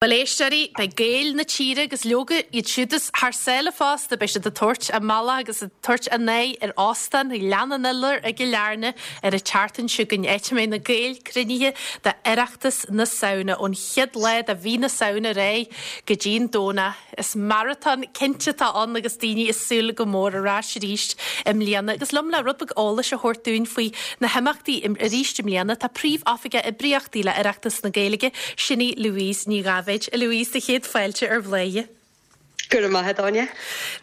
Bhuel, éisteoirí, beidh Gaeil na tíre agus leoga iad siúd is thar sáile fosta, beidh siad ag tabhairt a mbealach agus ag tabhairt a n-aghaidh ar Óstán Ghleann an Iolair i gCill Airne ar an tseachtain seo chugainn, áit a mbeidh na Gaeil cruinnithe d'Oireachtas na Samhna ón chéad lá de mhí na Samhna ar aghaidh go dtí an Domhnach. Is maratón cinnte atá ann agus daoine ag súil go mór ar ais arís i mbliana. Agus liom le rud beag eolais a thabhairt dúinn faoi na himeachtaí arís i mbliana tá Príomh-Oifigeach Oibríochtaí le Oireachtas na Gaeilge, sin í Louise Ní Dháibhéid. A Louise, do chéad fáilte ar Bhladhaire. Go raibh maith agat, Áine.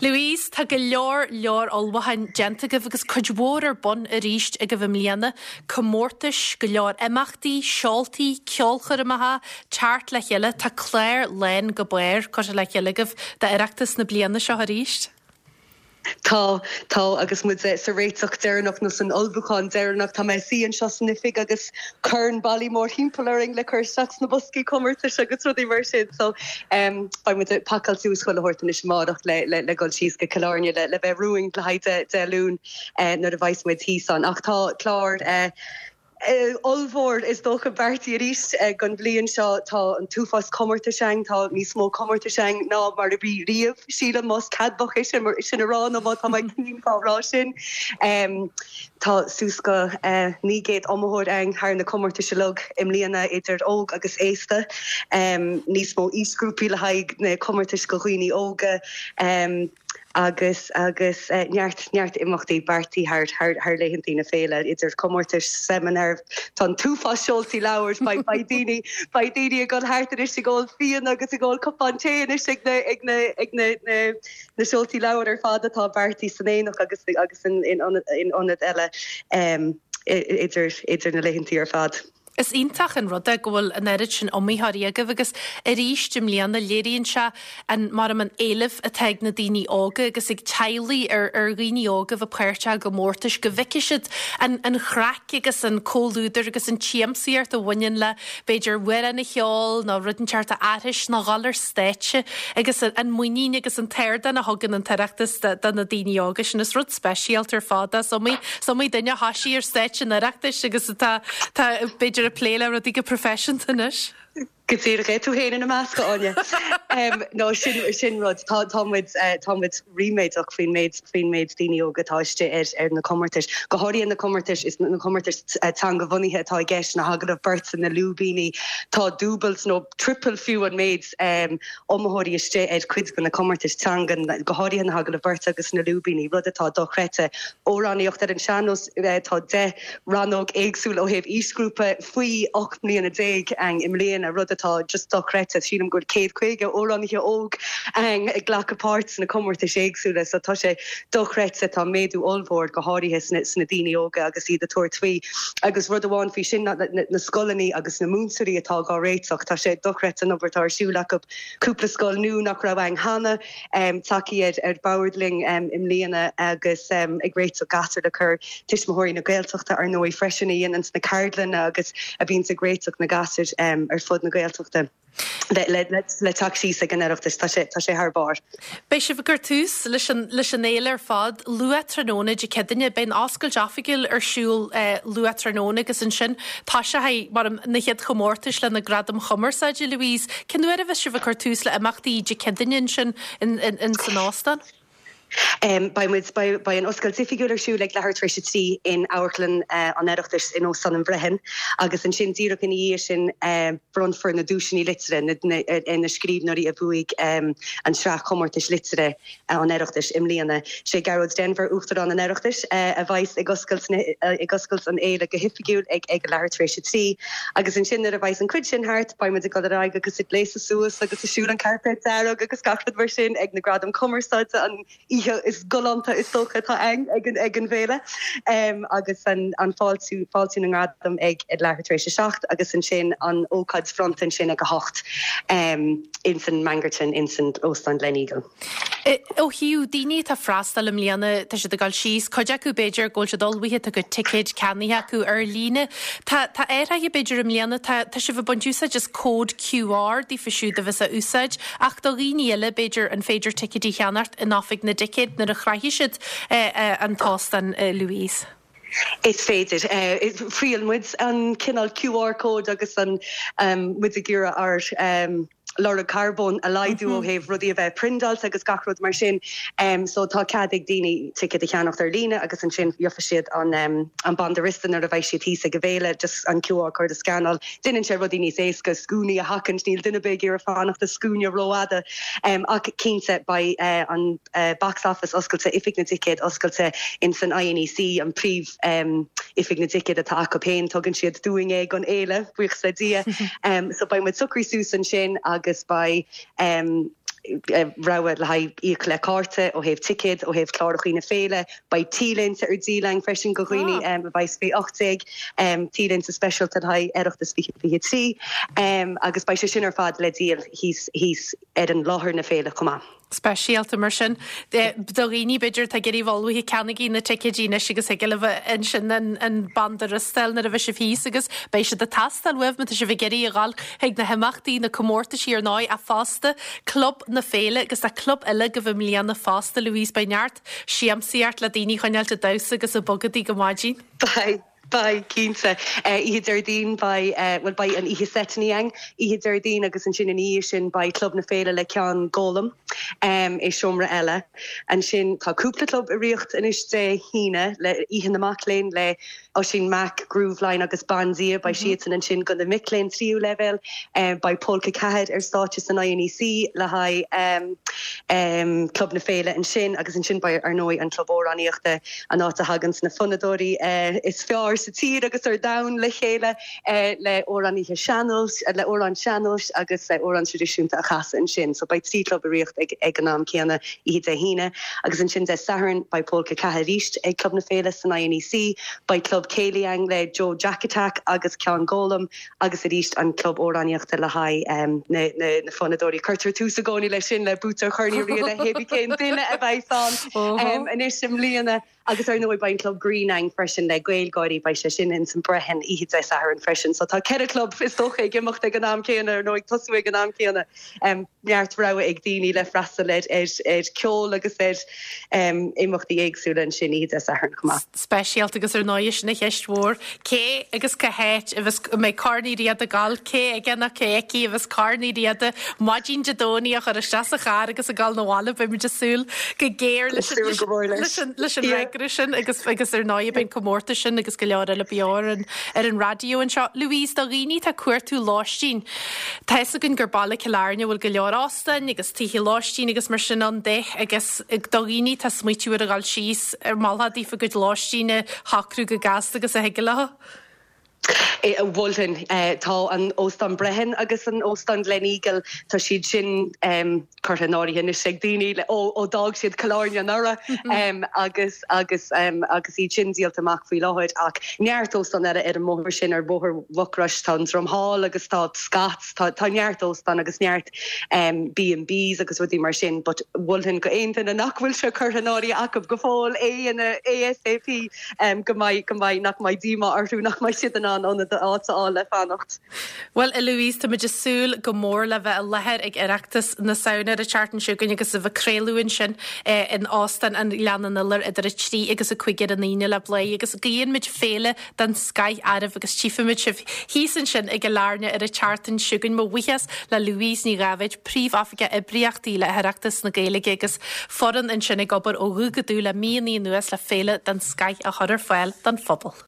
Louise, tá go leor leor ullmhúcháin déanta agaibh agus cuid mhór ar bun arís agaibh i mbliana, comórtais, go leor imeachtaí, seoltaí, ceolchoirmeacha, teacht le chéile. Tá clár lán go barr curtha le chéile agaibh d'Oireachtas na bliana seo arís. Tá, tá, agus muid sa réiteach deireanach nó san ullmhúchán deireanach. Tá mé ag suí anseo san oifig agus corn bailí mórthimpeall orainn le cur isteach sna boscaí comórtais agus rudaí mar sin. So, beidh muid ag pacáil suas chuile shórt anois amárach le le dhul síos go Cill Airne le le bheith romhainn le haghaidh Dé Luain nuair a bheas muid thíos ann. Ach tá clár ollmhór is dócha beartaithe arís don bhliain seo. Tá an t-uafás comórtais ann, tá níos mó comórtais ann ná mar a bhí riamh, sílim, más ceadmhach é sin a rá nó má tá mé cruinn fá rá sin. Tá suas go 900 iomaitheoir ann thar na comórtais uilig i mbliana, idir óg agus aosta. Níos mó aoisghrúpaí le haghaidh na comórtais do dhaoine óga. agus agus neart neart imeachtaí beartaithe thar thar thar laethantaí na féile, idir comórtais, seimineáir, tá an t-uafás seoltaí leabhar, beidh beidh daoine beidh daoine ag dul thart anois ag ól fíona agus ag ól cupán tae anois ag na ag na ag na na na seoltaí leabhar ar fad atá beartaithe san Aonach agus agus in in in ionaid eile idir idir na laethantaí ar fad. Is iontach an rud é go bhfuil an oiread sin iomaitheoirí agaibh agus arís i mbliana léiríonn sé an mar an éileamh atá ag na daoine óga agus ag teaghlaigh ar ar dhaoine óga a bheith páirteach i gcomórtais, go bhfeicfidh siad an an chraic agus an comhluadar agus an tsiamsaíocht a bhaineann le b'fhéidir amhrán a cheol nó rud inteacht a aithris nó dhul ar stáitse agus an muinín agus an t-ardán a thugann an tOireachtas do na daoine óga sin. Is rud speisialta ar fad é. Is iomaí is iomaí duine a thoisigh ar stáitse an Oireachtais agus atá tá b'fhéidir ag plé le rudaí go proifisiúnta anois. Go díreach é, tú féin ina measc, a Áine. No, sin, sin rud. Tá, tá muid, tá muid ríméadach faoin méid, faoin méid daoine óga atá istigh ar, ar na comórtais. Go háirithe na comórtais, is na comórtais teanga-bhunaithe atá i gceist, na hagallaimh beirte, na lúibíní. Tá dúbailt nó triple fiú an méid iomaitheoirí istigh ar cuid de na comórtais teanga, go háirithe na hagallaimh beirte agus na lúibíní, rud atá dochreidte. Amhránaíocht ar an sean-nós, tá 10 rannóg éagsúil ó thaobh aoisghrúpa faoi 18 mbliana ann i mbliana, rud atá just dochreidte. Sílim go bhfuil 150 amhránaithe óg ann ag glacadh páirt sna comórtais éagsúla so tá sé dochreidte. Tá méadú ollmhór, go háirithe sna daoine óga agus iad ag tabhairt faoi. Agus rud amháin faoi sin ná na scoileanna agus na múinteoirí atá dhá réiteach. Tá sé dochreidte an obair atá ar siúl acu. Cúpla scoil nua nach raibh ann cheana. tagtha ar bord linn i mbliana agus ag réiteach gasúir le cur Tuismitheoirí na Gaeltachta ar ndóigh freisin a dhéananns na ceardlanna agus a bhíonns ag réiteach na gasúir ar fud na Gaeltachta le teacht síos ag an Oireachtas. Tá sé tá sé thar barr. Beidh sibh ag cur tús leis an leis an fhéile ar fad luath tráthnóna Dé Céadaoine. Beidh an oscailt oifigiúil ar siúl luath tráthnóna agus ansin toiseoidh mar na chéad chomórtais le na Gradaim Chumarsáide, Louise. Cén uair a bheas sibh ag cur tús le imeachtaí Dé Céadaoine ansin in san óstán? Beidh muid, beidh an oscailt oifigiúil ar siúl ag leathuair tar éis a 3 in Amharclann an Oireachtais in Óstán an Bhreathain agus ansin díreach ina dhiaidh sin bronnfar na duaiseanna liteartha ar na scríbhneoirí a bhuaigh an tsraith chomórtais liteartha. an Oireachtais i mbliana. Sé Gearóid Denvir, Uachtarán an Oireachtais, a bheas ag oscailt ag oscailt an fhéile go hoifigiúil ag ag a leathuair tar éis a 3. Agus ansin nuair a bheas an cuid sin thart, beidh muid ag dul ar aghaidh agus ag gléasadh suas agus ag siúl an cairpéad dearg agus gach rud mar sin ag na Gradaim Cumarsáide, an oíche is galánta is dócha atá ann ag an ag an bhféile. Agus an an fáiltiú fáiltiú na ngradam ag ag leathuair tar éis a 7 agus ansin an ócáid bhronnta ansin ag a 8. ins an Mangerton ins an Óstán Gleneagle. Ó thaobh daoine atá ag freastal i mbliana, tá siad ag dul síos, cuid acu b'fhéidir go bhfuil siad ullmhaithe, tá a gcuid ticéid ceannaithe acu ar líne. Tá tá athraithe b'fhéidir i mbliana, tá tá sibh ag baint úsáid as cód QR daofa siúd a bheas á úsáid ach do dhaoine eile b'fhéidir an féidir ticéidí a cheannacht in oifig na dticéad nuair a shroichfidh siad an t-óstán, Louise. Is féidir. Thriail muid an cineál QR code agus an muid ag iarraidh ár. lorg carbóin a laghdú ó thaobh rudaí a bheith priondáilte agus gach rud mar sin. So tá cead ag daoine ticéad a cheannacht ar líne agus ansin gheofaidh siad an an banda riosta nuair a bheidh siad thíos ag an bhféile, just an QR code a scannáil. Déanann sé rudaí níos éasca, scuainí a sheachaint, níl duine ar bith ag iarraidh fanacht i scuaine rófhada. Ach cinnte beidh an box office oscailte, oifig na dticéad oscailte in san INEC, an príomh oifig na dticéad atá acu féin, tugann siad dúinn é don fhéile, buíochas le Dia. So beidh muid socraithe suas ansin agus beidh rogha le haghaidh íoc le cárta ó thaobh ticéad, ó thaobh clárachaí na féile. Beidh T-léinte ar díol againn freisin do dhaoine a bheidh faoi 18, T-léinte speisialta le haghaidh Oireachtas 2023 agus beidh sé sin ar fad le díol thíos thíos ar an láthair na féile chomh maith. Speisialta mar sin do dhaoine b'fhéidir atá ag iarraidh a bheith ullmhaithe, ceannaígí na ticéidí anois agus thig libh ansin an banda riosta a fháil nuair a bheidh sibh thíos agus beidh siad ag teastáil uaibh má tá sibh ag iarraidh a dhul chuig na himeachtaí, na comórtaisí ar ndóigh ach fosta Club na Féile agus tá club eile agaibh i mbliana fosta Louise, beidh neart siamsaíocht le daoine a choinneáilt ag damhsa agus ag bogadaí go maidin. Beidh, beidh, cinnte. Oíche Déardaoin beidh, bhuel beidh an oíche seiteanna againn oíche Déardaoin agus ansin ina dhiaidh sin beidh Club na Féile le Ceann Gólam i seomra eile. Ansin tá cúpla club ag rith anois Dé hAoine le Oíche na Mac Léinn le Oisín Mac, Grooveline agus Bandia, beidh siadsan ansin do na mic léinn tríú leibhéal. Beidh Pólca 4 ar stáitse san INEC le haghaidh Club na Féile ansin agus ansin beidh ar ndóigh an Club Amhránaíochta, an áit a thaganns na fonnadóirí is fearr sa tír agus ar domhan le chéile le amhránaithe sean-nóis, le amhráin sean-nóis agus amhráin traidisiúnta a chasadh ansin. So beidh 3 chlub ag rith ag an am céanna oíche Dé hAoine. Agus ansin Dé Sathairn beidh Pólca 4 arís ag Club na Féile san INEC, beidh Club Céilí againn le Joe Jack Attack agus Ceann Gólam agus arís an Club Amhránaíochta le haghaidh na fonnadóirí. Cuirtear tús i gcónaí leis sin le Boots ar Chorn Uí Riada, hébí cén duine a bheidh ann anois i mbliana. Agus ar ndóigh beidh an Club Grinn againn freisin le Gaelgáirí, beidh sé sin ins an Brehon oíche Dé Sathairn freisin. So tá 4 chlub is dócha ag imeacht ag an am céanna, nó ag tosú ag an am céanna. Neart rogha ag daoine le freastal ar ar ceol agus ar imeachtaí éagsúla ansin oíche Dé Sathairn chomh maith. Speisialta agus ar ndóigh sin an cheist mhór, cé agus cá háit a bheas, a mbeidh Corn Uí Riada ag gabháil, cé aige nó cé aici a bheas Corn Uí Riada maidin Dé Domhnaigh a chur isteach sa charr agus ag gabháil 'na bhaile, beidh muid ag súil go géar leis an leis an fhreagra sin agus agus ar ndóigh beidh an comórtas sin agus go leor eile beo ar an ar an raidió anseo. Louise, do dhaoine atá ag cuartú lóistín, tá fhios againn gur baile Cill Airne a bhfuil go leor óstáin agus tithe lóistín agus mar sin ann de agus do dhaoine atá ag smaoitiú ar a dhul síos, ar mholfá daofa a gcuid lóistín a shocrú chomh gasta agus a thig leo. Mholfainn. Tá an Óstán Brehon agus an Óstán Gleneagle, tá siad sin curtha in áirithe anois ag daoine ó d'fhág siad Cill Airne anuraidh agus agus agus iad sin díolta amach faoi láthair ach neart óstán eile ar an mbóthar sin, ar Bhóthar Mhucrois, tá an Dromhall agus tá Scott's, tá tá neart óstán agus neart B and Bs agus rudaí mar sin but mholfainn go aon duine nach bhfuil sé curtha in áirithe acu go fóill é a dhéanamh ASAP. go mbeidh, go mbeidh, nach mbeidh díomá orthu nach mbeidh siad in ann ionad, áit a fháil le fanacht. Bhuel, a Louise, táimid ag súil go mór le bheith i láthair ag Oireachtas na Samhna ar an tseachtain seo chugainn agus a bheith ag craoladh ansin in Óstán an Ghleann an Iolair idir 3 agus 5 ar an Aoine le Bladhaire agus guíonn muid féile den scoith oraibh agus tchífimid sibh thíos ansin i gCill Airne ar an tseachtain seo chugainn. Mo bhuíochas le Louise Ní Dháibhéid, Príomh-Oifigeach Oibríochtaí le hOireachtas na Gaeilge agus foireann ansin ag obair ó dhubh go dubh le míonnaí anuas le féile den scoith a chur ar fáil don phobal.